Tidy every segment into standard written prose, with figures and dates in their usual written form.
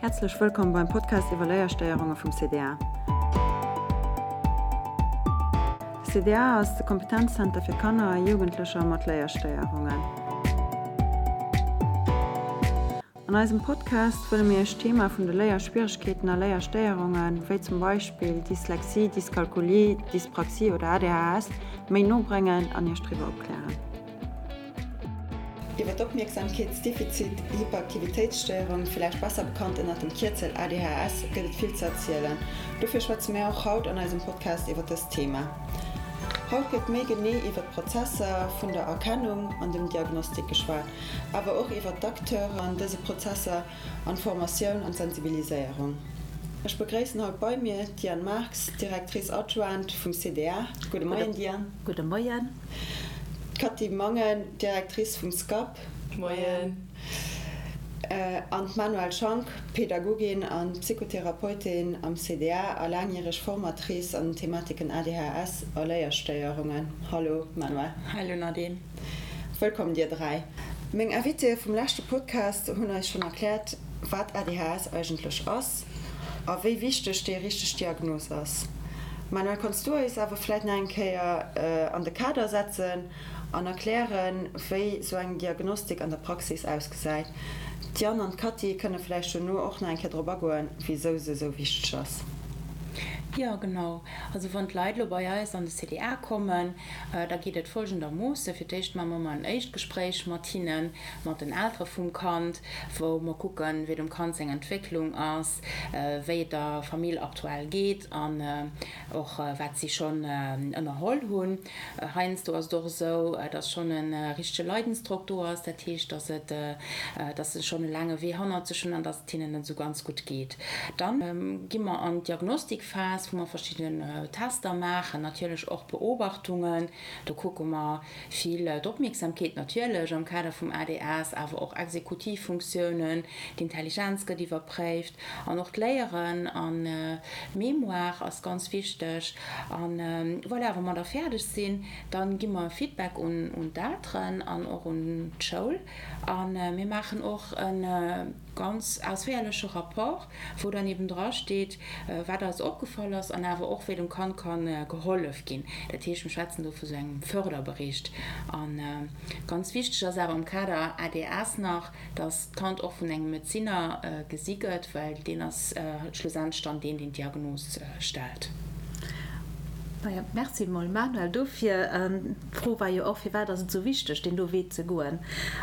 Häerzlech wëllkomm beim Podcast iwwer Léierstéierunge vum CDA. De CDA ass de Kompetenzzenter fir Kanner a Jugendlecher mat Léierstéierungen. An eisem Podcast wëlle mir Iech d'Thema vun de Léierschwieregkeeten a Léierstéierungen, wéi zum Beispill Dyslexie, Dyskalkulie, Dyspraxie oder ADHS, méi no bréngen an Iech driwwer opklären. Iwwer d'Opmierksamkeetsdefizit-Hyperaktivitéitsstéierung, villäicht besser bekannt ënnert dem Kierzel ADHS, gëtt et vill ze erzielen. Dofir schwätze mär och haut an eisem Podcast iwwer dëst Thema. Haut gëtt méi genee iwwer d'Prozesser vun der Erkennung an dem Diagnostik geschwat, awer och iwwer d'Acteuren an dëse Prozesser an d'Formatioun an d'Sensibiliséierung. Ech begréissen haut bei mir d'Diane Marx, Directrice adjointe vum CDA. Gudde Moien, Diane. Gudde Moien. D'Cathy Mangen, Directrice vum SCAP. Moien. An d'Manuelle Schank, Pädagogin a Psychotherapeutin am CDA a laangjäreg Formatrice an den Thematiken ADHS a Léierstéierungen. Hallo Manuelle. Hallo Nadine. Wëllkomm dir 3. Meng Invitéë vum leschte Podcast hunn eis schonn erkläert, wat ADHS eigentlech ass a wéi wichteg déi richteg Diagnos ass. Manuel, kanns du eis awer vläit nach eng Kéier an de Kader setzen an erklären, wéi sou eng Diagnostik an der Praxis ausgesäit? D'Diane an d'Cathy kënne vläicht dono och nach eng Kéier drop agoen, wisou se sou wichteg ass. Jo, genau. Also wann d'Leit elo bei eis an de CDA kommen, Da geet et folgendermoossen, Fir d'éischt maache mer ëmmer en éischt Gespréich mat hinnen, mat den Eltere vum Kand, wou mer kucken, wéi dem Kand seng Entwécklung ass, wéi et der Famill aktuell geet an och wat si schonn ënnerholl hunn. Heiansdo ass et och esou, dass schonn e richtege Leidensdrock do ass, dat heescht, dass et, dass se schonn e laange Wee hannert sech hunn an dass et hinnen net esou ganz gutt geet. Dann gi mer an d'Diagnostikphas, wou mer verschidden Tester maachen, natierlech och Beobachtungen. Do kucke mer vill d'Opmierksamkeet natierlech am Kader vum ADS, awer och Exekutivfunktiounen, d'Intelligenz gëtt iwwerpréift an och d'Léieren an d'Mémoire ass ganz wichteg. An voilà, wa mer da fäerdeg sinn, da gi mer e Feedback un d'Elteren an och un d'Schoul a mir maachen och e ganz ausféierleche Rapport, wou dann eben dra steet, wat eis opgefall ass an awer och wéi dem Kand ka gehollef ginn. Dat heescht, mir schwätzen do vu sou engem Förderbericht. A ganz wichteg ass awer am Kader ADS nach, dass d'Kand och vun engem Medezinner gesi gëtt, well deen ass schlussendlech dann deen, deen d'Diagnos stellt. Naja, merci mol Manuel dofir. D'Fro war jo och, firwat ass et esou wichteg, deen do Wee ze goen?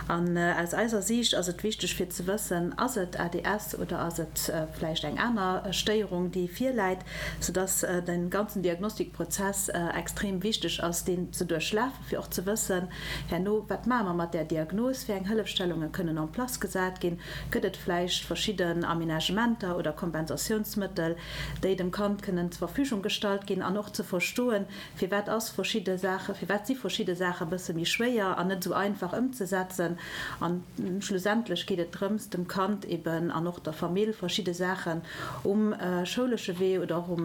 An aus eiser Siicht ass et wichteg fir ze wëssen, ass et ADS oder ass et vläicht eng aner Stéierung, déi virläit, soudass de ganzen Diagnostikprozess extrem wichteg ass, deen ze duerchlafen, fir och ze wëssen herno, wat maache mer mat där Diagnos, wéi eng Hëllefstellunge kënnen en place gesat ginn, gëtt et vläicht verschidden Aménagementer oder Kompensatiounsmëttel, déi dem Kand kënnen zur Verfügung gestallt ginn an och ze verstoen, firwat ass verschidde Saache, firwat si verschidde Saache e bësse méi schwéier an net esou einfach ëmzesetzen. An schlussendlech geet et drëms, dem Kand eben an och der Famill verschidde Saachen um schoulesche Wee oder och um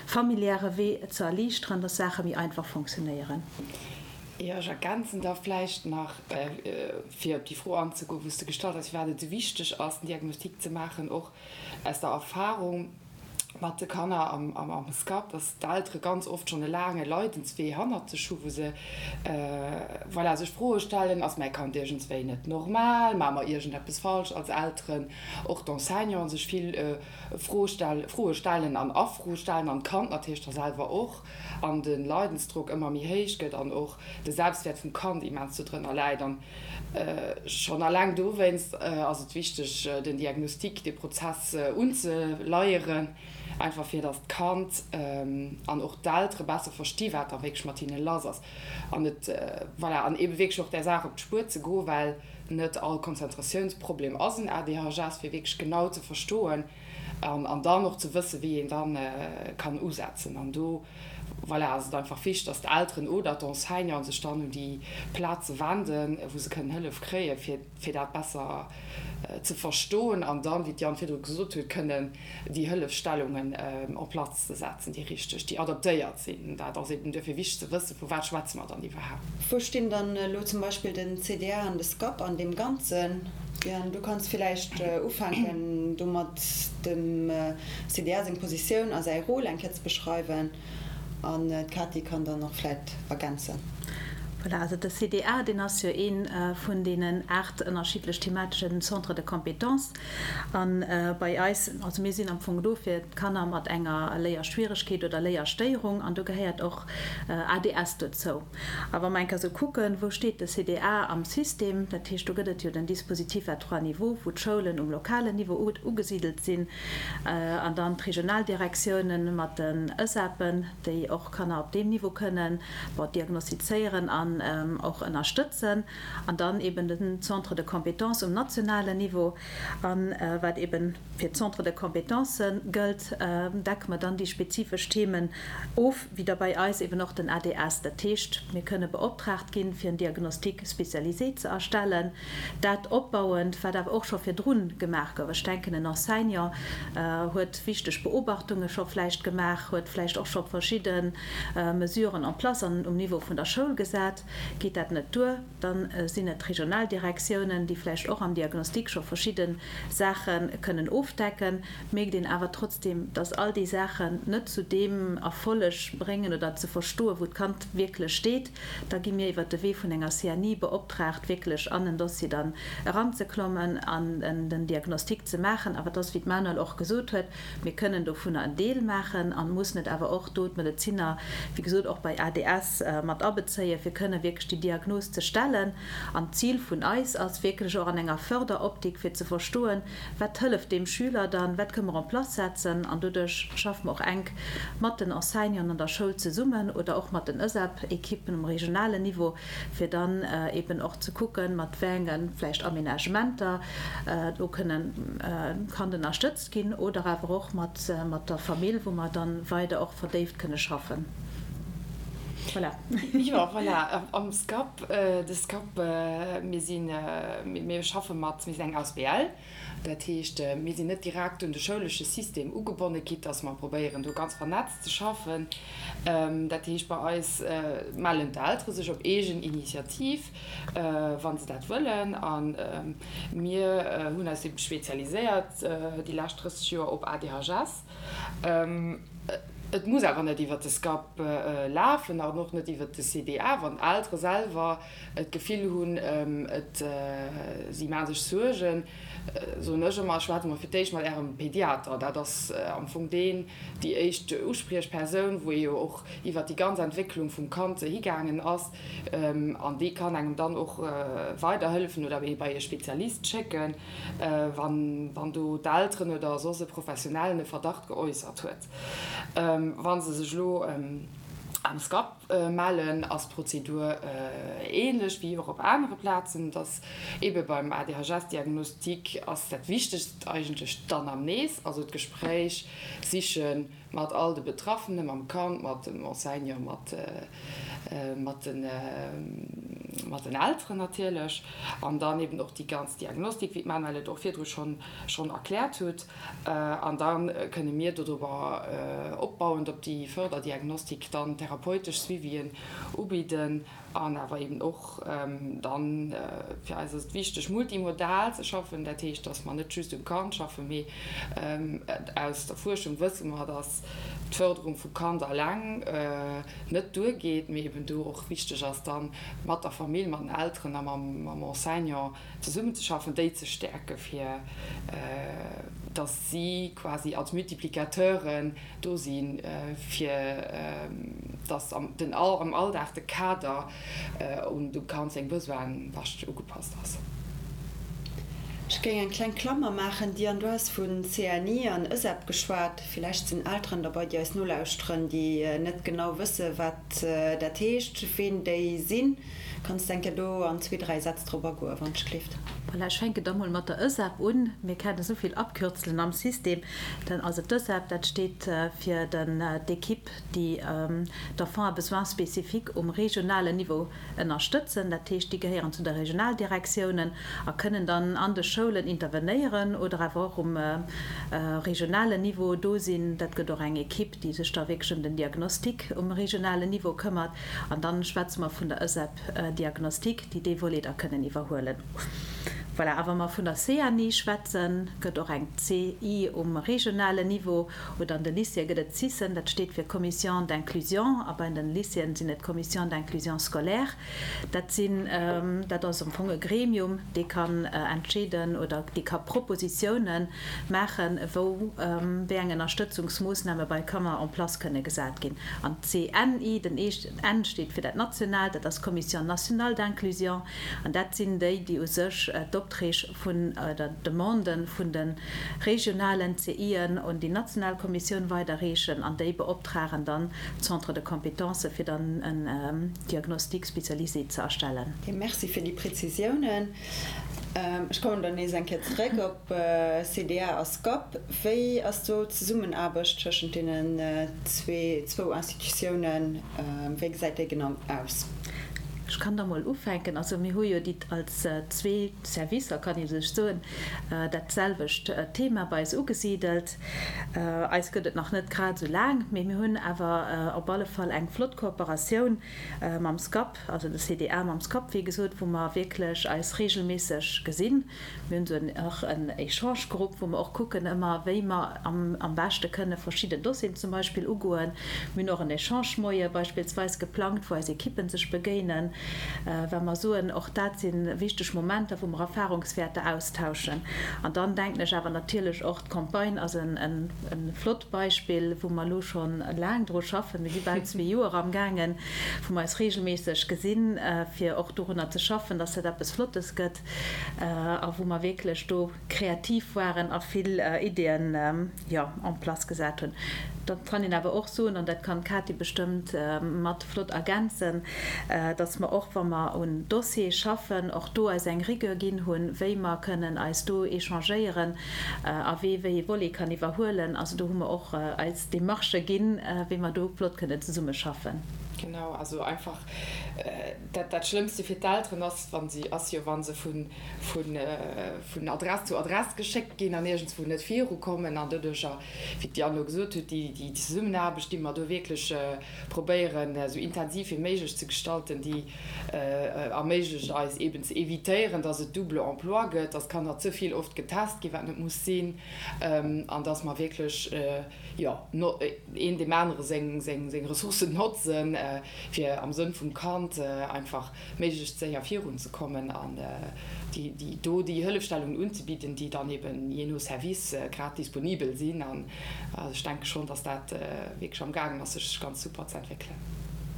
familiäre Wee ze erliichteren, dass Saache méi einfach fonctionnéieren. Jo, ech ergänzen da vläicht nach, fir op déi Fro anzegoen, wou s de gestallt hues, firwat et esou wichteg ass, den Diagnostic ze maachen, och aus der Erfahrung mat de Kanner am SCAP, dass d'Eltere ganz oft schonn e laange Leidenswee hannert sech hu wou se, voilà, sech Froe stellen, Ass mäi Kand iergendswéi net normal? Maache mer iergendeppes falsch als Elteren? Och d'Enseignanten sech vill Froe stellen an a Fro stellen an d'Kand natierlech da selwer och an de Leidensdrock ëmmer méi héich gëtt an och de Selbstwäert vum Kand immens dodrënner läit. An Schonn alleng dowéinst ass et wichteg, den Diagnostic, dee Prozess unzeleieren, einfach fir datt d'Kand an och d'Eltere besser versti wat da wierklech mat hinne lass ass an et, voilà, an eebe wierklech och där Saach op d'Spuer ze goen, well net all Konzentratiounsproblem ass en ADHS, fir wierklech genau ze verstoen an dann och ze wëssen, wéi een da kann usetzen. An do. Voilà, ass et einfach wichteg, dass d'Elteren oder d'Enseignanten sech dann un déi Plaze wenden, wou se kënnen Hëllef kréien, fir, fir dat besser ze verstoen an dann, wéi d'Diane virdru gesot huet, kënnen déi Hëllefstellungen en place ze setzen, déi richteg, déi adaptéiert sinn. Dat ass eben duerfir wichteg ze wëssen, vu wat schwätze mer dann iwwerhaapt. Wou stinn dann elo zum Beispill den CDA an de SCAP an deem Ganzen? Diane, du kanns villäicht ufänken domat, dem CDA seng Positioun a säi Rôle eng Kéier ze beschreiwen. An d'Katy kann dann och vläit ergänzen. Voilà, also de CDA, deen ass jo ee vun deenen 8 ënnerschiddlech themateschen Centres de compétences. A bei eis, also mir sinn am Fong do fir d'Kanner mat enger Léierschwieregkeet oder Léierstéierung an do gehéiert och ADS dozou. A wa mer eng Kéier esou kucken, wou steet de CDA am System, dat heescht, do gëtt et jo den Dispositif à trois niveaux, wou d'Schoulen um lokalen Niveau ugesidelt sinn, An dann d'Regionaldirektiounen mat den ËSAPen, déi och Kanner op deem Niveau kënnen, bon, diagnostizéieren an och ënnerstëtzen. An dann eben den Centre de compétences um nationalen Niveau. A wat eben fir d'Centres de compétences gëllt, decke mer dann déi spezifesch Themen of, wéi da bei eis eben och den ADS. Dat heescht, mir kënne beoptraagt ginn, fir en Diagnostic spécialisé ze erstellen. Dat opbauend, wat awer och scho virdrun gemaach gouf, ech denken, en Enseignant huet wichteg Beobachtunge scho vläicht gemaach, huet vläicht och scho verschidde Mesuren en place an um Niveau vun der Schoul gesat. Geet dat net duer, da sinn et d'Regionaldirektiounen, déi vläicht och am Diagnostic scho verschidde Saache kënnen ofdecken. Mierkt een awer trotzdem, dass all déi Saachen net zu deem Erfolleg bréngen oder ze verstoen, wou d'Kand wierklech steet. Da gi mir iwwert de Wee vun enger CNI beoptraagt, wierklech an en Dossier dann eranzeklommen an den Diagnostic ze maachen. Awer et ass, wéi d'Manuel och gesot huet, mir kënnen dovunner en Deel maachen an mussen et awer och do d'Medezinner, wéi gesot, och bei ADS mat abezéien, fir kënnen wierklech déi Diagnos ze stellen. An d'Zil vun eis ass wierklech och an enger Förderoptik, fir ze verstoen, Wat hëlleft deem Schüler dann? Wat kënne mer en place setzen? An doduerch schaffe mer och enk mat den Enseignanten an der Schoul zesummen oder och mat den ËSAP-Ekippen um regionalen Niveau, fir dann eben och ze kucken, mat wéi enge vläicht Aménagementer do kënnen d'Kand ënnerstëtzt ginn oder awer och mat der Famill, wou mer dann weider och verdéift kënne schaffen. Voilà. Jo, voilà. Am SCAP, de SCAP, mir sinn, mir schaffe mat, mir sinn eng Asbl, dat heescht, mir sinn net direkt un de schoulesche System ugebonne, quitte dass mer probéieren, do ganz vernetzt ze schaffen. Dat heescht, bei eis mellen d'Eltere sech op eegen Initiativ, wa se dat wëllen. A mir hunn eis ebe spezialiséiert déi lescht 30 Joer op ADHS. Et muss awer net iwwert de SCAP lafen an och net iwwert de CDA. Wann d'Eltere selwer d'Gefill hunn, et si maache sech Suergen, soen ech ëmmer, schwätzt emol fir d'éischt mat Ärem Pediater. Dat ass am Fong deen, déi éischt Uspriechpersoun, wou ee jo och iwwert déi ganz Entwécklung vum Kand higaangen ass. An dee kann engem dann och weiderhëllefen oder ee bei e Spezialist schécken, wann do d'Elteren oder soss e Professionellen e Verdacht geäussert huet. Wa se sech elo am SCAP mellen, ass d'Prozedur ähnlech wéi och op anere Plazen. Et ass eebe beim ADHS-Diagnostic ass dat Wichtegst eigentlech d'Anamnes, also d'Gespréich sichen, Mat all de Betraffenen, mam Kand, mat dem Enseignant, mat mat den mat den Elteren natierlech. An dann eben och déi ganz Diagnostik, wéi d'Manuelle et och virdru schonn schonn erkläert huet. An da kënne mir dodrobber opbauend op déi Förderdiagnostik dann therapeutesch Suivien ubidden. An awer eben och dann, fir eis ass et wichteg, multimodal ze schaffen. Dat heescht, dass mer net just um Kand schaffen, mee aus der Fuerschung wësse mer, dass d'Förderung vum Kand alleng net duergeet, mee eben do och wichteg ass, dann mat der Famill, mat den Elteren a mam Enseignant zesummenzeschaffen, déi ze stäerken, fir dass si quasi als Multiplicateuren do sinn, fir dass am Alldag de Kader un dem Kand seng Besoine bescht ugepasst ass. Ech géing eng kleng Klammer maachen, Diane, du has vu CNI an ËSEP geschwat. Villäicht sinn Elteren derbei, déi eis nolauschteren, déi net genau wësse wat dat heescht, ween déi sinn. Kanns de eng Kéier do an zwee, dräi Sätz drop agoen, wann ech gleeft? Voilà, ech fänken da mol mat der ÖSAB un. Mir kennen esou vill Abkürzelen am System. Dann, also d'ÖSAB, dat steet fir den, d'Equipe, déi d'Enfants à besoins spécifiques um regionalen Niveau ënnerstëtzen. Dat heescht, déi gehéieren zu der Regionaldirektiounen a kënnen dann an de Schoulen intervenéieren oder awer och um regionalen Niveau do sinn. Dat gëtt och eng Equipe, déi sech da wierklech ëm den Diagnostic um regionalen Niveau këmmert. An dann schwätze mer vun der ÖSEP Diagnostic, déi dee Volet da kënnen iwwerhuelen. Voilà. A wa mer vun der CNI schwätzen, gëtt och eng CI um regionalen Niveau. Oder an de Lycéeë gëtt et CISen, dat steet fir Commission d'inclusion, a bei den Lycéeën sinn et Commissions d'inclusion scolaire. Dat sinn, dat ass am Fong e Gremium, dee kann entscheeden oder dee ka Propositiounen maachen, wou wéi eng Ënnerstëtzungsmoossname bei Kanner en place kënne gesat ginn. An d'CNI, den N steet fir dat Nationaalt, dat ass d'Commission nationale d'inclusion, an dat sinn déi, déi u sech d'Opträg vun oder d'Demande vun de regionalen CIen un déi national Kommissioun weiderreechen an déi beoptragen dann d'Centres de compétences, fir dann en Diagnostic spécialisé ze erstellen. Merci fir déi Prezisiounen. Ech kommen dann nees eng Kéier zeréck op CDA a SCAP. Wéi ass do d'Zesummenaarbecht tëschent deenen zwou Institutiounen? Wéi gesäit déi genau aus? Ech kann da mol ufänken. Also mir hu jo déi als zwee Servicer, kann ee sech soen, dat selwecht Thema bei eis ugesidelt. Eis gëtt et nach net grad esou laang, mee mir hunn awer op alle Fall eng flott Kooperatioun mam SCAP, also de CDA mam SCAP, wéi gesot, wou mer wierklech eis regelméisseg gesinn. Mir hunn esou en och en Echangegrupp, wou mer och kucken ëmmer, wéi mer am am beschte kënne verschidden Dossieren zum Beispill ugoen. Mir hunn och en Echange-Moie beispillsweis geplangt, wou eis Ekippen sech begéinen, well mer soen, och dat si wichteg Momenter, wou mer Erfahrungswäerter austauschen. An dann denken ech awer natierlech och, d'Campagne ass en e flott Beispill, wou mer elo scho laang dru schaffen. Mir si bal zwee Joer amgaangen, wou mer eis regelméisseg gesinn, fir och dorunner ze schaffen, dass dat eppes Flottes gëtt a wou mer wierklech do kreativ waren a vill Ideeën, jo, en place gesat hunn. Da kann een awer och soen, an dat kann d'Katy bestëmmt mat flott ergänzen, dass mer och, wa mer un Dossiere schaffen, och do eis eng Rigueur ginn hunn, wéi mer kënnen eis do échangéieren a wee wéi ee Volet kann iwwerhuelen. Also do hu mer och eis Demarchë ginn, wéi mer do flott kënnen zesummeschaffen. Genau, also einfach dat, dat Schlëmmste fir d'Elteren ass, wa si, ass jo, wa se vun, vun, vun Adress zu Adress geschéckt ginn an iergendswou net virukommen. An doduercher, wéi d'Diane elo gesot huet, déi, déi Zesummenaarbecht, déi mer do wierklech probéieren, esou intensiv wéi méiglech ze gestalten, déi erméiglecht eis eeben ze évitéieren, dass et double emploi gëtt, dass Kanner ze vill oft getest ginn, wat net muss sinn, an dass mer wierklech, jo, een deem anere seng Ressourcen notzen, fir am Sënn vum Kand einfach méiglechst séier virunzekommen an déi do déi Hëllefstellungen unzebidden, déi dann eeben jee no Service grad disponibel sinn. An ech denke schonn, dass dat wierklech amgaangen ass, sech ganz super ze entwéckelen.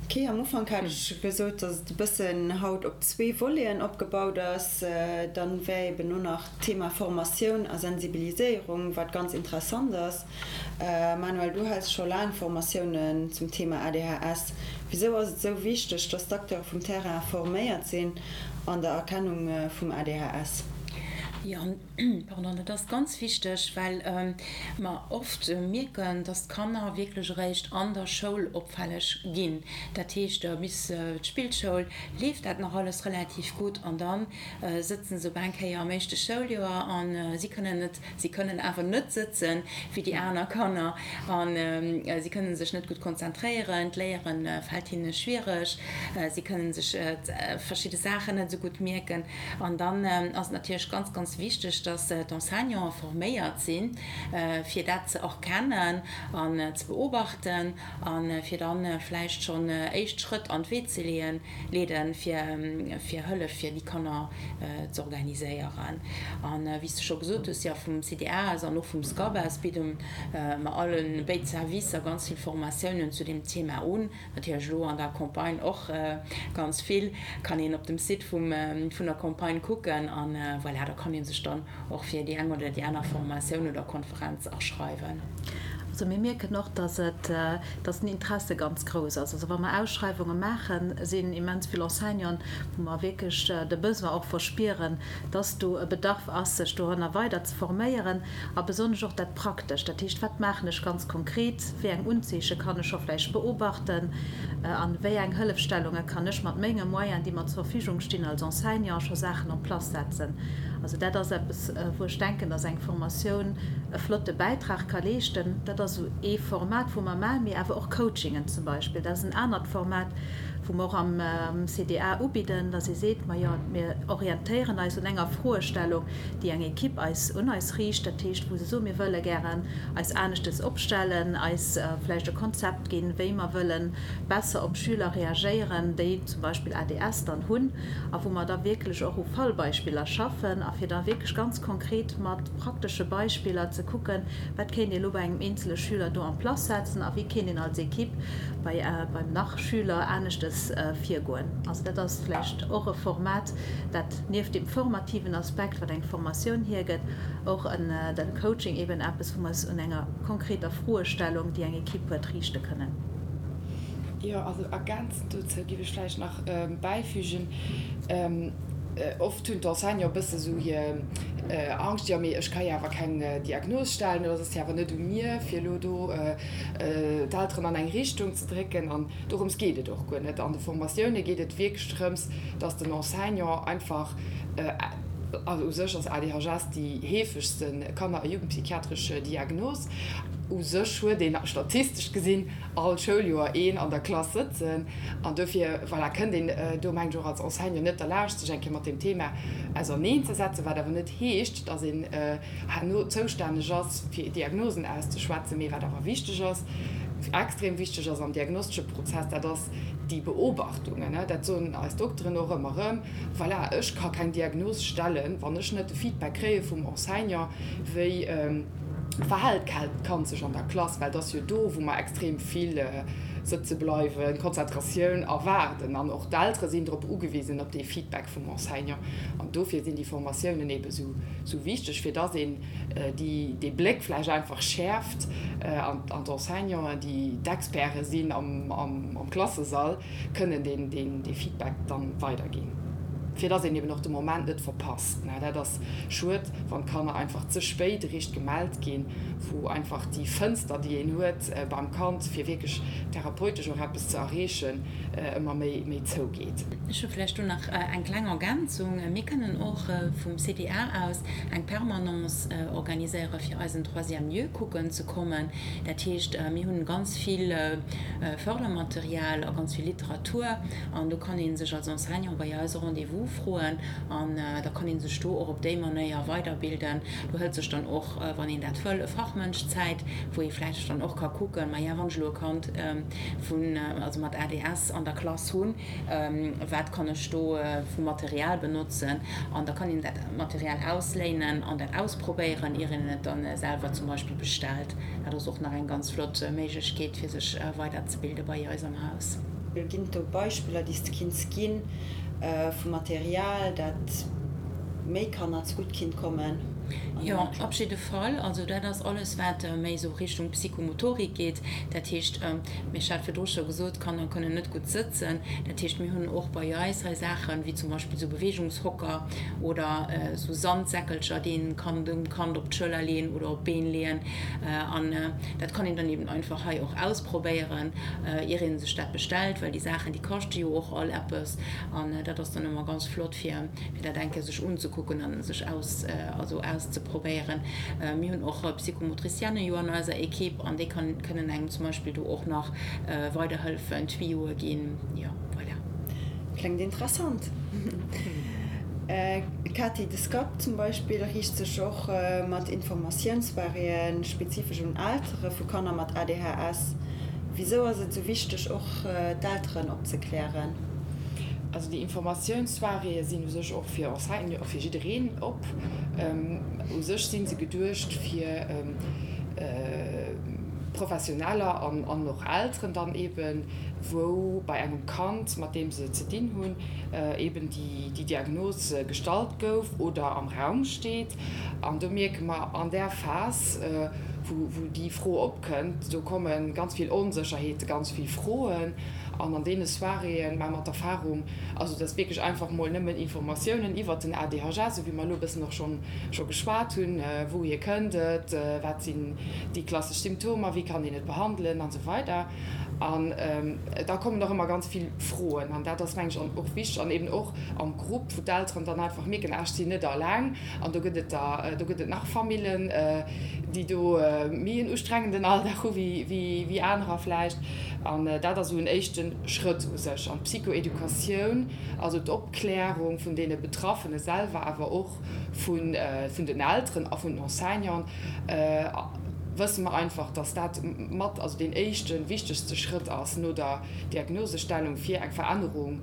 Ok, am Ufank hat ech gesot, dass et e bëssen haut op zwee Voleten opgebaut ass. Dann wär eben elo nach d'Thema Formatioun a Sensibiliséierung, wat ganz interessant ass. Manuel, du häls scho laang Formatiounen zum Thema ADHS. Wisou ass et esou wichteg, dass d'Acteure vum Terrain forméiert sinn an der Erkennung vum ADHS? Jo, pardon, dat ass ganz wichteg, well mer oft mierken, dass d'Kanner wierklech eréischt an der Schoul opfälleg ginn. Dat heescht, bis d'Spillschoul leeft dat nach alles relativ gutt an da sëtzen se op eng Kéier am éischte Schouljoer a si kënnen net, si kënnen awer net sëtzen wéi déi aner Kanner a si kënnen sech net gutt konzentréieren, d'Léiere fält hinne schwiereg, si kënnen sech verschidde Saachen net esou gutt mierken. An dann ass et natierlech ganz, ganz wichteg, dass d'Enseignanten forméiert sinn, fir dat ze erkennen an ze beobachten a fir da vläicht schonn éischt Schrëtt an d'Wee ze leeën, leeden, fir Hëllef fir déi Kanner z'organiséieren. A wéi s de scho gesot hues, jo, vum CDA aus an och vum SCAP aus bidde mer allen béid Servicer ganz vill Formatiounen zu deem Thema un. Natierlech elo an der Campagne och ganz vill, kann een op dem Site vum vun der Campagne kucken an voilà, da kann ee sech dann och fir déi eng oder déi aner Formatioun oder Konferenz aschreiwen. Also mir mierken och, dass et, dass den Interesse ganz grouss ass. Also wa mer Ausschreiwunge maachen, sinn immens vill Enseignanten, wou mer wierklech de Besoin och verspieren, dass do e Bedarf ass, sech doranner weider ze forméieren a besonnesch och dat Praktescht. Dat heescht, wat maachen ech ganz konkret, wéi eng Unzeeche kann ech scho vläicht beobachten an wéi eng Hëllefstellunge kann ech mat menge Moyenen, déi mer zur Verfügung stinn als Enseignant, scho Saachen en place setzen. Also dat ass eppes, wou ech denken, dass eng Formatioun e flotte Bäitrag ka leeschten. Dat ass esou ee Format, wou mer maachen, mee awer och Coachingen zum Beispill. Dat ass en anert Format, wou mer och am CDA ubidden, dass ee seet, Majo, mir orientéieren eis un enger Froestellung, déi eng Ekipp eis un eis riicht. Dat heescht, wou se soen, mir wëlle gären eis aneschtes opstellen, eis vläicht e Konzept ginn, wéi mer wëlle besser op Schüler reagéieren, déi zum Beispill ADS dann hunn, a wou mer da wierklech och u Fallbeispiller schaffen a fir da wierklech ganz konkret mat praktesche Beispiller ze kucken, wat kéint ee elo bei engem eenzele Schüler do en place setzen a wéi kéint een als Ekipp bei beim nach Schüler aneschtes virgoen. Also dat ass vläicht och e Format, dat nieft deem formativen Aspekt, wat eng Formatioun hiergëtt, och en de Coaching eben eppes, wou mer es un enger konkreter Froestellung, déi eng Ekipp huet, riichte kënnen. Jo, also ergänzend dozou géif ech vläicht nach bäifügen, Oft hunn d'Enseignanten e bësse sou hir Angscht, jo mee ech ka jo awer keng Diagnos stellen oder et ass jo awer net u mir, fir elo do d'Elteren an eng Richtung ze drécken. An dorëms geet et och guer net. An de Formatioune geet et wierklech drëms, dass den Enseignant einfach, also u sech ass ADHS déi heefegste kanner a jugendpsychiatresch Diagnos, u sech huet een statistesch gesinn all Schouljoer een an der Klass sëtzen an dofir, voilà, kënnt een do, mengen ech, och als Enseignant net derlaanscht, sech eng Kéier mat deem Thema auserneenzesetzen, wat awer net heescht, dass een herno zoustänneg ass, fir Diagnosen auszeschwätzen. Mee wat awer wichteg ass, extrem wichteg ass am diagnostesche Prozess, dat ass déi Beobachtungen. Dat soen eis Dokteren och ëmmer erëm, voilà, ech ka keng Diagnos stellen, wann ech net de Feedback kréie vum Enseignant, wéi verhält d'Kand sech an der Klass, well et ass jo do, wou mer extrem vill sëtze bleiwen, Konzentratioun erwaarden an och d'Eltere sinn drop ugewisen, op dee Feedback vum Enseignant. An dofir sinn déi Formatiounen eebe sou wichteg, fir dass een dee Bléck vläicht einfach schäerft an d'Enseignanten, déi d'Experte sinn am Klassesall, kënnen dee Feedback dann weiderginn, fir dass een eben och de Moment net verpasst. Dat ass schued, wann d'Kanner einfach ze spéit eréischt gemellt ginn, wou einfach déi Fënster, déi een huet beim Kand, fir wierklech therapeutesch och eppes ze erreechen, ëmmer méi zougeet. Ech hu vläicht do nach eng kleng Ergänzung. Mir kënnen och vum CDA aus eng Permanence organiséiere fir eisen Troisième lieu kucken ze kommen. Dat heescht, mir hunn ganz vill Fördermaterial a ganz vill Literatur an do kann ee sech als Enseignant bei eis e Rendez-vous froen an da kann ee sech do och op déi Manéier weiderbilden. Do hëlt sech dann och, wann een dat wëll, e Fachmënsch Zäit, wou ee vläicht dann och ka kucken, maja, wann ech elo e Kand vun, also mat ADS an der Klass hunn, wat kann ech do vu Material benotzen an da kann een dat Material ausléinen an dat ausprobéieren, ier een et dann selwer zum Beispill bestellt. Dat ass och nach eng ganz flott Méiglechkeet fir sech weiderzebilde bei eis am Haus. Ginn et do Beispiller, déi s de kinns ginn, vu Material, dat méi Kanner zegutt kinnt kommen? Jo, op jidde Fall. Also dat ass alles, wat méi esou Richtung Psychomotorik geet. Dat heescht, ech hat virdru scho gesot, d'Kanner kënnen net gutt sëtzen. Dat heescht, mir hunn och bei eis hei Saachen, wéi zum Beispill esou Beweegungshocker oder esou Sandsäckelcher, déi een kann dem Kand op d'Schëller leeën oder op d'Been leeën. An dat kann een dann eben einfach hei och ausprobéieren, ier ee sech dat bestellt, well déi Saachen, déi kaschte jo och all eppes. An dat ass dann ëmmer ganz flott, fir fir dat eng Kéier sech unzekucken a sech aus, also auszeprobéieren. Mir hunn och Psychomotricienne jo an eiser Equipe an déi kann, kënnen engem zum Beispill do och nach weiderhëllefen, Tuyauxe ginn. Jo, voilà. Kléngt interessant. Katy, de SCAP zum Beispill riicht sech och mat Informatiounssoiréeën spezifesch un Eltere vu Kanner mat ADHS. Wisou ass et esou wichteg och d'Elteren opzeklären? Also déi Informatiounssoiréeë sinn u sech och fir Enseignanten, fir jiddereen op. U sech si se geduecht fir Professioneller an och Elteren dann eeben, wou bei engem Kand, mat deem se ze dinn hunn, eeben déi Diagnos gestallt gouf oder am Raum steet. An do mierke mer an där Phas. wou déi Fro opkënnt, do komme ganz vill Onsécherheete, ganz vill Froen. An an deene Soiréeë maache mer d'Erfahrung, also dass wierklech einfach mol nëmmen Informatiounen iwwert den ADHS, esou wéi mer elo e bëssen och schonn scho geschwat hunn, wouhier kënnt et, wat sinn déi klassesch Symptomer, wéi kann een et behandelen an esou weider. An da kommen och ëmmer ganz vill Froen an dat ass, mengen ech, och wichteg an eben och am Grupp, wou d'Elteren dann einfach mierken, ah ech sinn net alleng an do gëtt et der, do gëtt et nach Famillen, déi do méi en ustrengenden Alldag hu wéi anerer vläicht. An dat ass esou en éischte Schrëtt u sech. An d'Psychoeducatioun, also d'Opklärung vun deene Betraffene selwer, awer och vun den Elteren a vun den Enseignanten, wësse mer einfach, dass dat mat, also deen éischten, wichtegste Schrëtt ass no der Diagnosestellung, fir eng Verännerung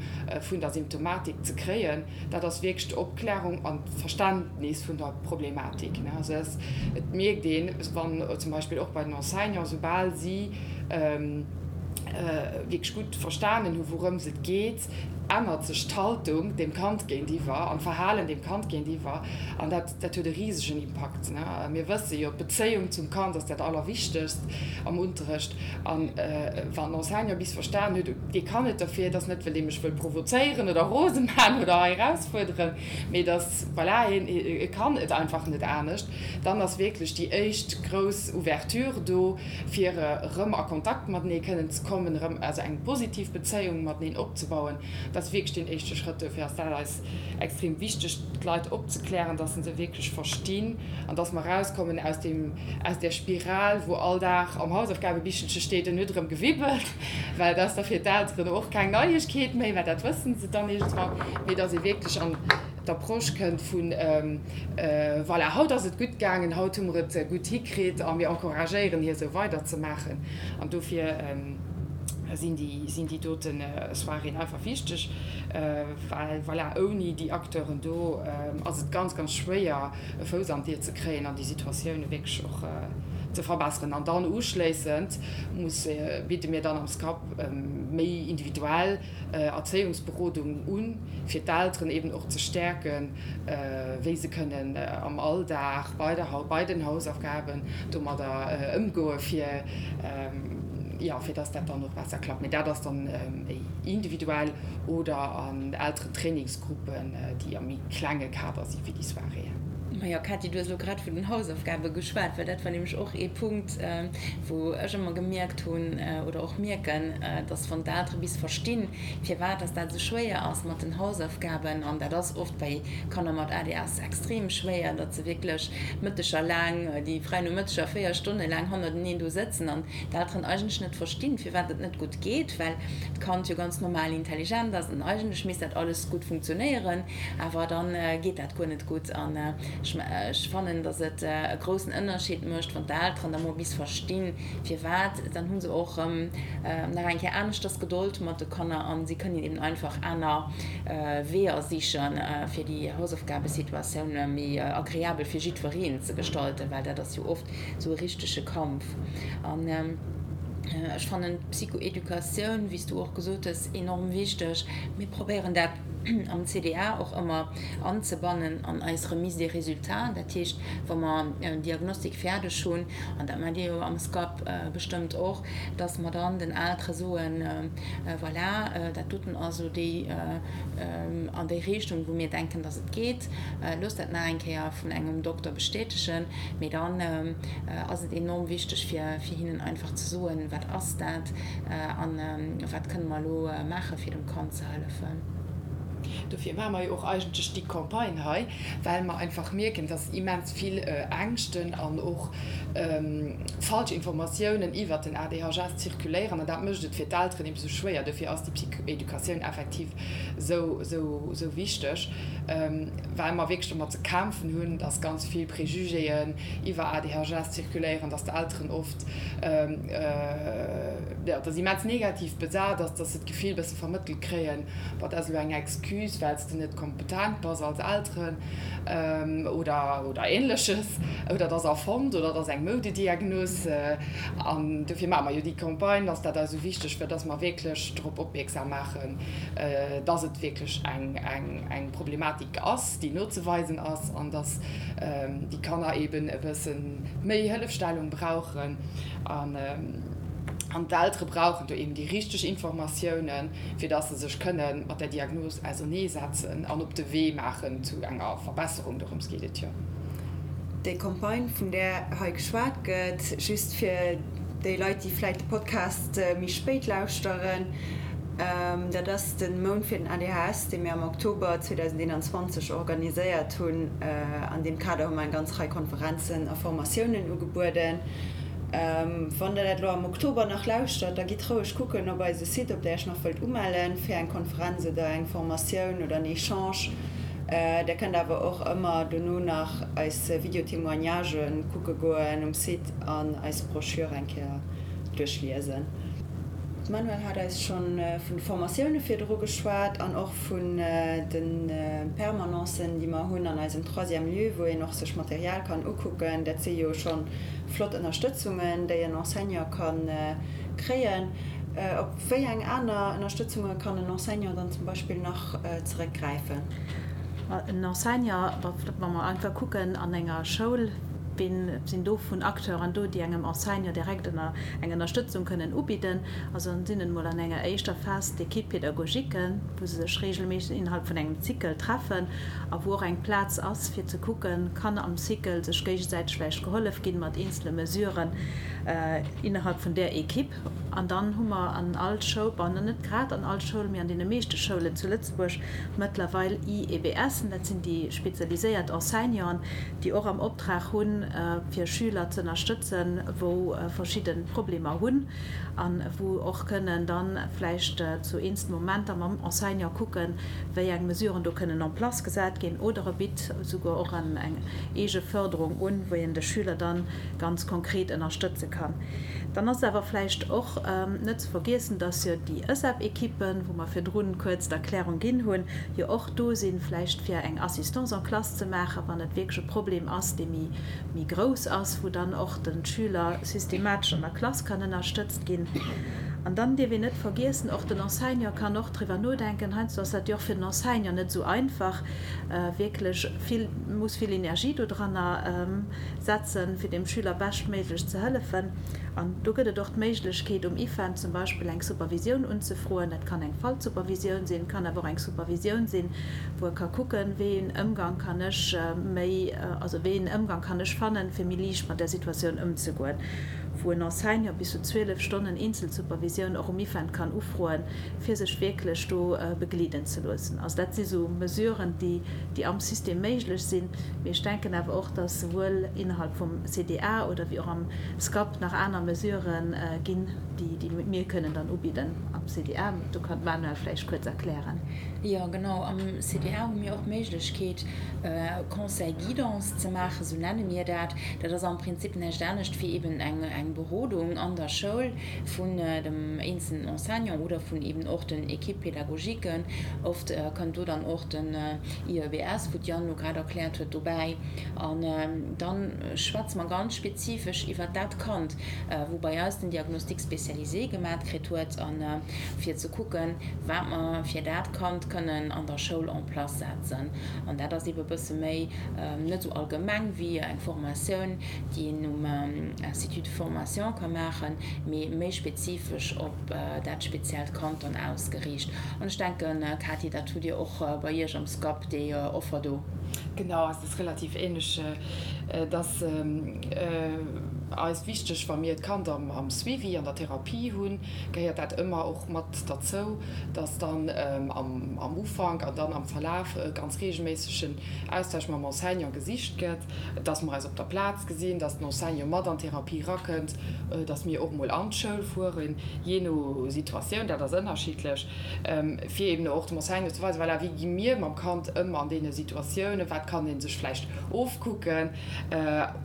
vun der Symptomatik ze kréien. Dat ass wierklech d'Opklärung an d'Verständnis vun der Problematik. Also et mierkt een, wann zum Beispill och bei den Enseignanten, soubal si wierklech gutt verstanen hu wourëms et geet, ännert sech d'Haltung dem Kand géintiwwer an d'Verhalen dem Kand géintiwwer an dat dat huet e risegen Impakt. Mir wësse jo, d'Bezéiung zum Kand ass dat Allerwichtegst am Unterrecht an wann den Enseignant bis verstan huet, dee kann net derfir, et ass net well dee mech wëll provozéieren oder rose man oder hei erausfuerderen, mee dass, voilà, hien e kann et einfach net anescht, dann ass wierklech déi éischt grouss Ouverture do, fir erëm a Kontakt matenee kënnen ze kommen, erëm also eng positiv Bezéiung mateneen opzebauen, dat ass wierklech deen éischte Schrëtt. Dofir ass dat eis extrem wichteg, d'Leit opzeklären, dass se se wierklech verstinn an dass mer erauskommen aus deem, aus där Spiral, wou all Dag am Hausaufgabebichelche steet, en huet erëm gewibbelt, well dat ass da fir d'Elteren och keng Neiegkeet méi, well dat wësse se dann iergendwann, mee dass ee wierklech an d'Approche kënnt vun, Voilà, haut ass et gutt gaangen, haut hu mer et gutt hikritt a mir encouragéieren hie sou weiderzemaachen. An dofir sinn déi, sinn déi dote Soiréeën einfach wichteg, well voilà, ouni déi Acteuren do ass et ganz, ganz schwéier e Fouss an d'Dier ze kréien an déi Situatioune wierklech och ze verbesseren. An dann uschléissend muss, bidde mir dann am SCAP méi individuell Erzéiungsberodung un, fir d'Elteren eben och ze stäerken, wéi se kënnen am Alldag bei der, bei den Hausaufgaben domadder ëmgoen, fir, jo, fir dass dat dann och besser klappt. Mee dat ass dann méi individuell oder an Elterentrainingsgruppen, déi am méi klenge Kader si wéi déi Soiréeën. Majo, Cathy, du hues elo grad vun den Hausaufgabe geschwat, well dat war nämlech och ee Punkt, wou ech ëmmer gemierkt hunn oder och mierken, dass wann d'Eltere bis verstinn, firwat dass dat esou schwéier ass mat den Hausaufgaben, an dat ass oft bei Kanner mat ADS extrem schwéier, datt se wierklech Mëtteger laang, déi fräi Nomëtteger 4 Stonne laang hannerteneen do sëtzen an d'Elteren eigentlech net verstinn, firwat et net gutt geet, well d'Kand jo ganz normal intelligent ass an eigentlech misst dat alles gutt funktionéieren, awer dann geet dat guer net gutt. An ech fannen, datt et e groussen Ënnerscheed mécht, wann d'Elteren da mol bis verstinn, Firwat? Dann hu se och erëm nach eng Kéier aneschters Gedold mat de Kanner a si kënnen eben einfach aner Weeër sichen, fir déi Hausaufgabesituatioun méi agreabel fir jiddwereen ze gestalten, well dat ass jo oft esou e richtege Kampf. An ech fannen d'Psychoeducatioun, wéi s du och gesot hues, enorm wichteg. Mir probéieren dat am CDA och ëmmer anzebannen an eis Remise des résultats, dat heescht, wa mer en Diagnostic fäerdeg hunn, an dat maacht Dir jo am SCAP bestëmmt och, dass mer dann den Eltere soen, voilà, dat doten ass elo déi an déi Richtung, wou mir denken, dass et geet, loosst dat nach eng Kéier vun engem Dokter bestätegen. Mee dann ass et enorm wichteg, fir hinnen einfach ze soen, wat ass dat a wat kënne mer elo maachen, fir dem Kand ze hëllefen. Dofir maache mer jo och eigentlech déi Campagne hei, well mer einfach mierken, dass immens vill Ängschten an och falsch Informatiounen iwwert den ADHS zirkuléieren. An dat mécht et fir d'Elteren eben esou schwéier. Dofir ass déi Psychoeducatioun effektiv esou, esou, esou wichteg, well mer wierklech domat ze kämpfen hunn, dass ganz vill Préjugéen iwwer ADHS zirkuléieren, dass d'Elteren oft, jo, dass immens negativ besat ass, dass se d'Gefill e bësse vermëttelt kréien, Boah, dat ass elo eng Excuse. Excuse, well s de net kompetent bass als Elteren oder, oder Ähnleches, oder et ass erfonnt oder et ass eng Moudediagnos. An dofir maache mer jo déi Campagne, ass dat eis esou wichteg, fir dass mer wierklech drop opmierksam maachen, dass et wierklech eng, eng, eng Problematik ass, déi nozeweisen ass an dass déi Kanner eeben e bësse méi Hëllefstellung brauchen. An, an d'Eltere brauchen do eeben déi richteg Informatiounen, fir dass se sech kënne mat der Diagnos auserneesetzen an op de Wee maachen zu enger Verbesserung. Dorëms geet et jo. Déi Campagne, vun där hei geschwat gëtt, just fir déi Leit, déi vläit de Podcast méi spéit lauschteren, dat ass de Mount fir den ADHS, dee mir am Oktober 2021 organiséiert hunn. An deem Kader hu mer eng ganz Rei Konferenzen a Formatiounen ugebueden. Wann der dat elo am Oktober nach lauschtert, da gitt roueg kucken op eise Site, ob der iech nach wëllt umellen fir eng Konferenz oder eng Formatioun oder en Echange. Der kënnt awer och ëmmer dono nach eis Video-Témoignagen kucke goen um Site an eis Brochure eng Kéier duerchliesen. D'Manuelle hat eis schonn vun de Formatioune virdru geschwat an och vun de Permanencen, déi mer hunn an eisem Troisième lieu, wou een och sech Material kann ukucken. Dat si jo schonn flott Ënnerstëtzungen, déi en Enseignant ka kréien. Op wéi eng aner Ënnerstëtzunge kann en Enseignant dann zum Beispill nach zeréckgräifen? En Enseignant, wa mer einfach kucken an enger Schoul, wien sinn do vun Acteuren do, déi engem Enseignant direkt eng Ënnerstëtzung kënnen ubidden? Also sinn et emol an enger éischter Phas d'Équipe pédagogique, wou se sech regelméisseg innerhalb vun engem Cycle treffen a wou och eng Plaz ass fir ze kucken, kann am Cycle sech géigesäiteg vläicht gehollef ginn mat eenzele Mesuren innerhalb vun där Equipe. An dann hu mer an all Schoul, bon, net grad an all Schoul, mee an deene meeschte Schoulen zu Lëtzebuerg mëttlerweil IEBSen, dat sinn déi spezialiséiert Enseignanten, déi och am Optrag hunn, fir Schüler ze ënnerstëtzen, wou verschidde Problemer hunn a wou och kënnen dann vläicht zu eenzelne Momenter mam Enseignant kucken, wéi eng Mesuren do kënnen en place gesat ginn, oder e bitt esouguer och eng eege Förderung un, wou een de Schüler dann ganz konkret ënnerstëtze kann. Dann ass et awer vläicht och net ze vergiessen, dass jo déi ËSAB-Ekippen, wou mer virdrun kuerz d'Erklärung ginn hunn, jo och do sinn, vläicht fir eng Assistance en classe ze maachen, wann et wierklech e Problem ass, dee méi, méi grouss ass, wou dann och de Schüler systematesch an der Klass kann ënnerstëtzt ginn. An dann dierf een net vergiessen, och den Enseignant kann och driwwer nodenken, heiansdo ass dat jo och fir den Enseignant net esou einfach, wierklech vill, muss vill Energie dodranner setzen, fir dem Schüler beschtméiglech ze hëllefen. An do gëtt et och d'Méiglechkeet, um IFEN zum Beispill eng Supervisioun unzefroen. Dat kann eng Fallsupervisioun sinn, kann awer och eng Supervisioun sinn, wou e ka kucken, wéi een Ëmgang kann ech méi, also wéi een Ëmgang kann ech fannen, fir méi liicht mat där Situatioun ëmzegoen, wou en Enseignant bis zu 12 Stonnen Eenzelsupervisioun och um IFEN kann ufroen, fir sech wierklech do begleeden ze loossen. Also dat si sou Mesuren, déi, déi am System méiglech sinn. Mee ech denken awer och, dass souwuel innerhalb vum CDA oder wéi och am SCAP nach aner Mesurë ginn, déi, déi mir kënnen dann ubidden am CDA. Do kann d'Manuelle vläicht kuerz erklären. Jo, genau. Am CDA hu mir och d'Méiglechkeet, Conseil guidance ze maachen, esou nenne mir dat. Dat ass am Prinzip näischt anescht wéi eben eng, eng Berodung an der Schoul vun dem eenzelnen Enseignant oder vun eben och den Équipes pédagogiques. Oft kënnt do dann och den IEBS, wou d'Jeanne elo grad erkläert huet, dobäi. An da schwätze mer ganz spezifesch iwwert dat Kand, wou bei eis den Diagnostic spécialisé gemat kritt huet, a fir ze kucken, wat mer fir dat Kand kënnen an der Schoul en place setzen. An dat ass eebe bësse méi net esou allgemeng wéi eng Formatioun, déi een um Institut de formation ka maachen, mee méi spezifesch op dat speziellt Kand dann ausgeriicht. An ech denken, Katy, dat hutt Dir och bei Iech am SCAP, déi Offer do. Genau, et ass relativ ähnlech. Et ass eis wichteg, wa mir d'Kand am Suivi, an der Therapie hunn, gehéiert dat ëmmer och mat derzou, dass dann am Ufank an dann am Verlaf e ganz reegelméissegen Austausch mam Enseignant gesicht gëtt, dass mer eis op der Plaz gesinn, dass den Enseignant mat an d'Therapie erakënnt, dass mir och emol an d'Schoul fueren, jee no Situatioun, dat ass ënnerschiddlech, fir eben och dem Enseignant ze weisen, voilà, wéi gi mir mam Kand ëm an deene Situatiounen, wat kann ee sech vläicht ofkucken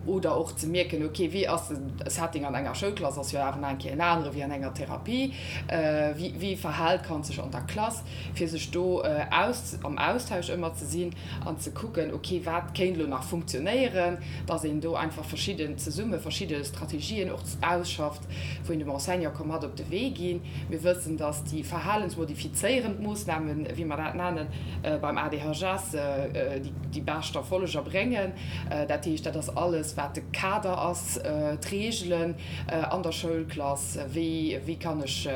oder och ze mierken, ok, wéi ass. ass de Setting an enger Schoulklass ass jo awer nach eng Kéier en anere wéi an enger Therapie, wéi wéi verhält d'Kand sech an der Klass, fir sech do aus am Austausch ëmmer ze sinn an ze kucken, ok wat kéint elo nach funktionéieren, dass een do einfach verschidden zesumme verschidde Strategien och ausschafft, wou een dem Enseignant ka mat op de Wee ginn. Mir wëssen, dass déi verhalensmodifizéierend Moossnamen, wéi mer dat nennen, beim ADHS déi bescht Erfolleger bréngen. Dat heescht, dat ass alles, wat de Kader ass, d'Reegelen an der Schoulklass, wéi wéi kann ech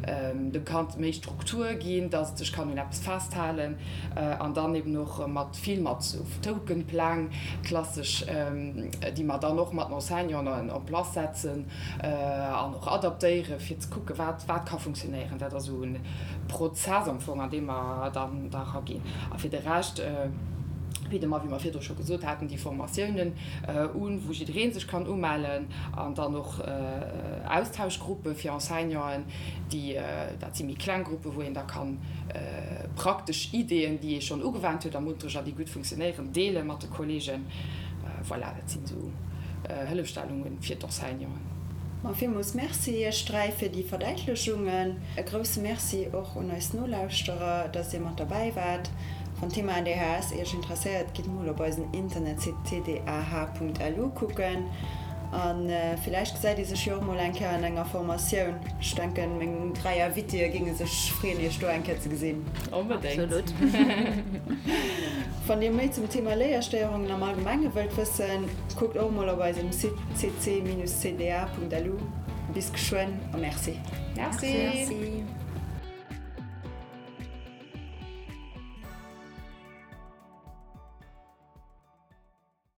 dem Kand méi Struktur ginn, dass et sech kann un eppes festhalen an dann eben och mat vill mat sou Tokenpläng, klassesch, déi mer dann och mat den Enseignanten en place setzen an och adaptéieren, fir ze kucken, wat wat ka funktionéieren. Dat ass esou e Prozess am Fong, an dee mer dann da eraginn. A fir de Rescht bidde mer, wéi mer virdru scho gesot haten, déi Formatiounen un, wou jidderee sech kann umellen an dann och Austauschgruppe fir Enseignanten, déi, dat si méi kleng Gruppen, wou een da kann praktesch Ideeën, déi ee schonn ugewennt huet am Unterrecht a déi gutt funktionéieren, deele mat de Kolleegen. Voilà, dat sinn esou Hëllefstellunge fir d'Enseignanten. Ma villmools Merci iech 3 fir déi Verdäitlechungen. E grousse Merci och un eis Nolauschterer, dass dir mat derbäi waart. Wann d'Thema ADHS iech interesséiert, gitt mol op eisen Internetsite tdah.lu kucken. A villäicht gesäit ee sech jo och mol eng Kéier an enger Formatioun. Ech denken, meng 3 Invitéë géinge sech freeën, iech do eng Kéier ze gesinn. Onbedéngt! Absolut! Wann dir méi zum Thema Léierstéierungen am Allgemenge wëllt wëssen, kuckt och mol op eisem Site cc-cda.lu. Bis geschwënn a Merci! Merci! Merci!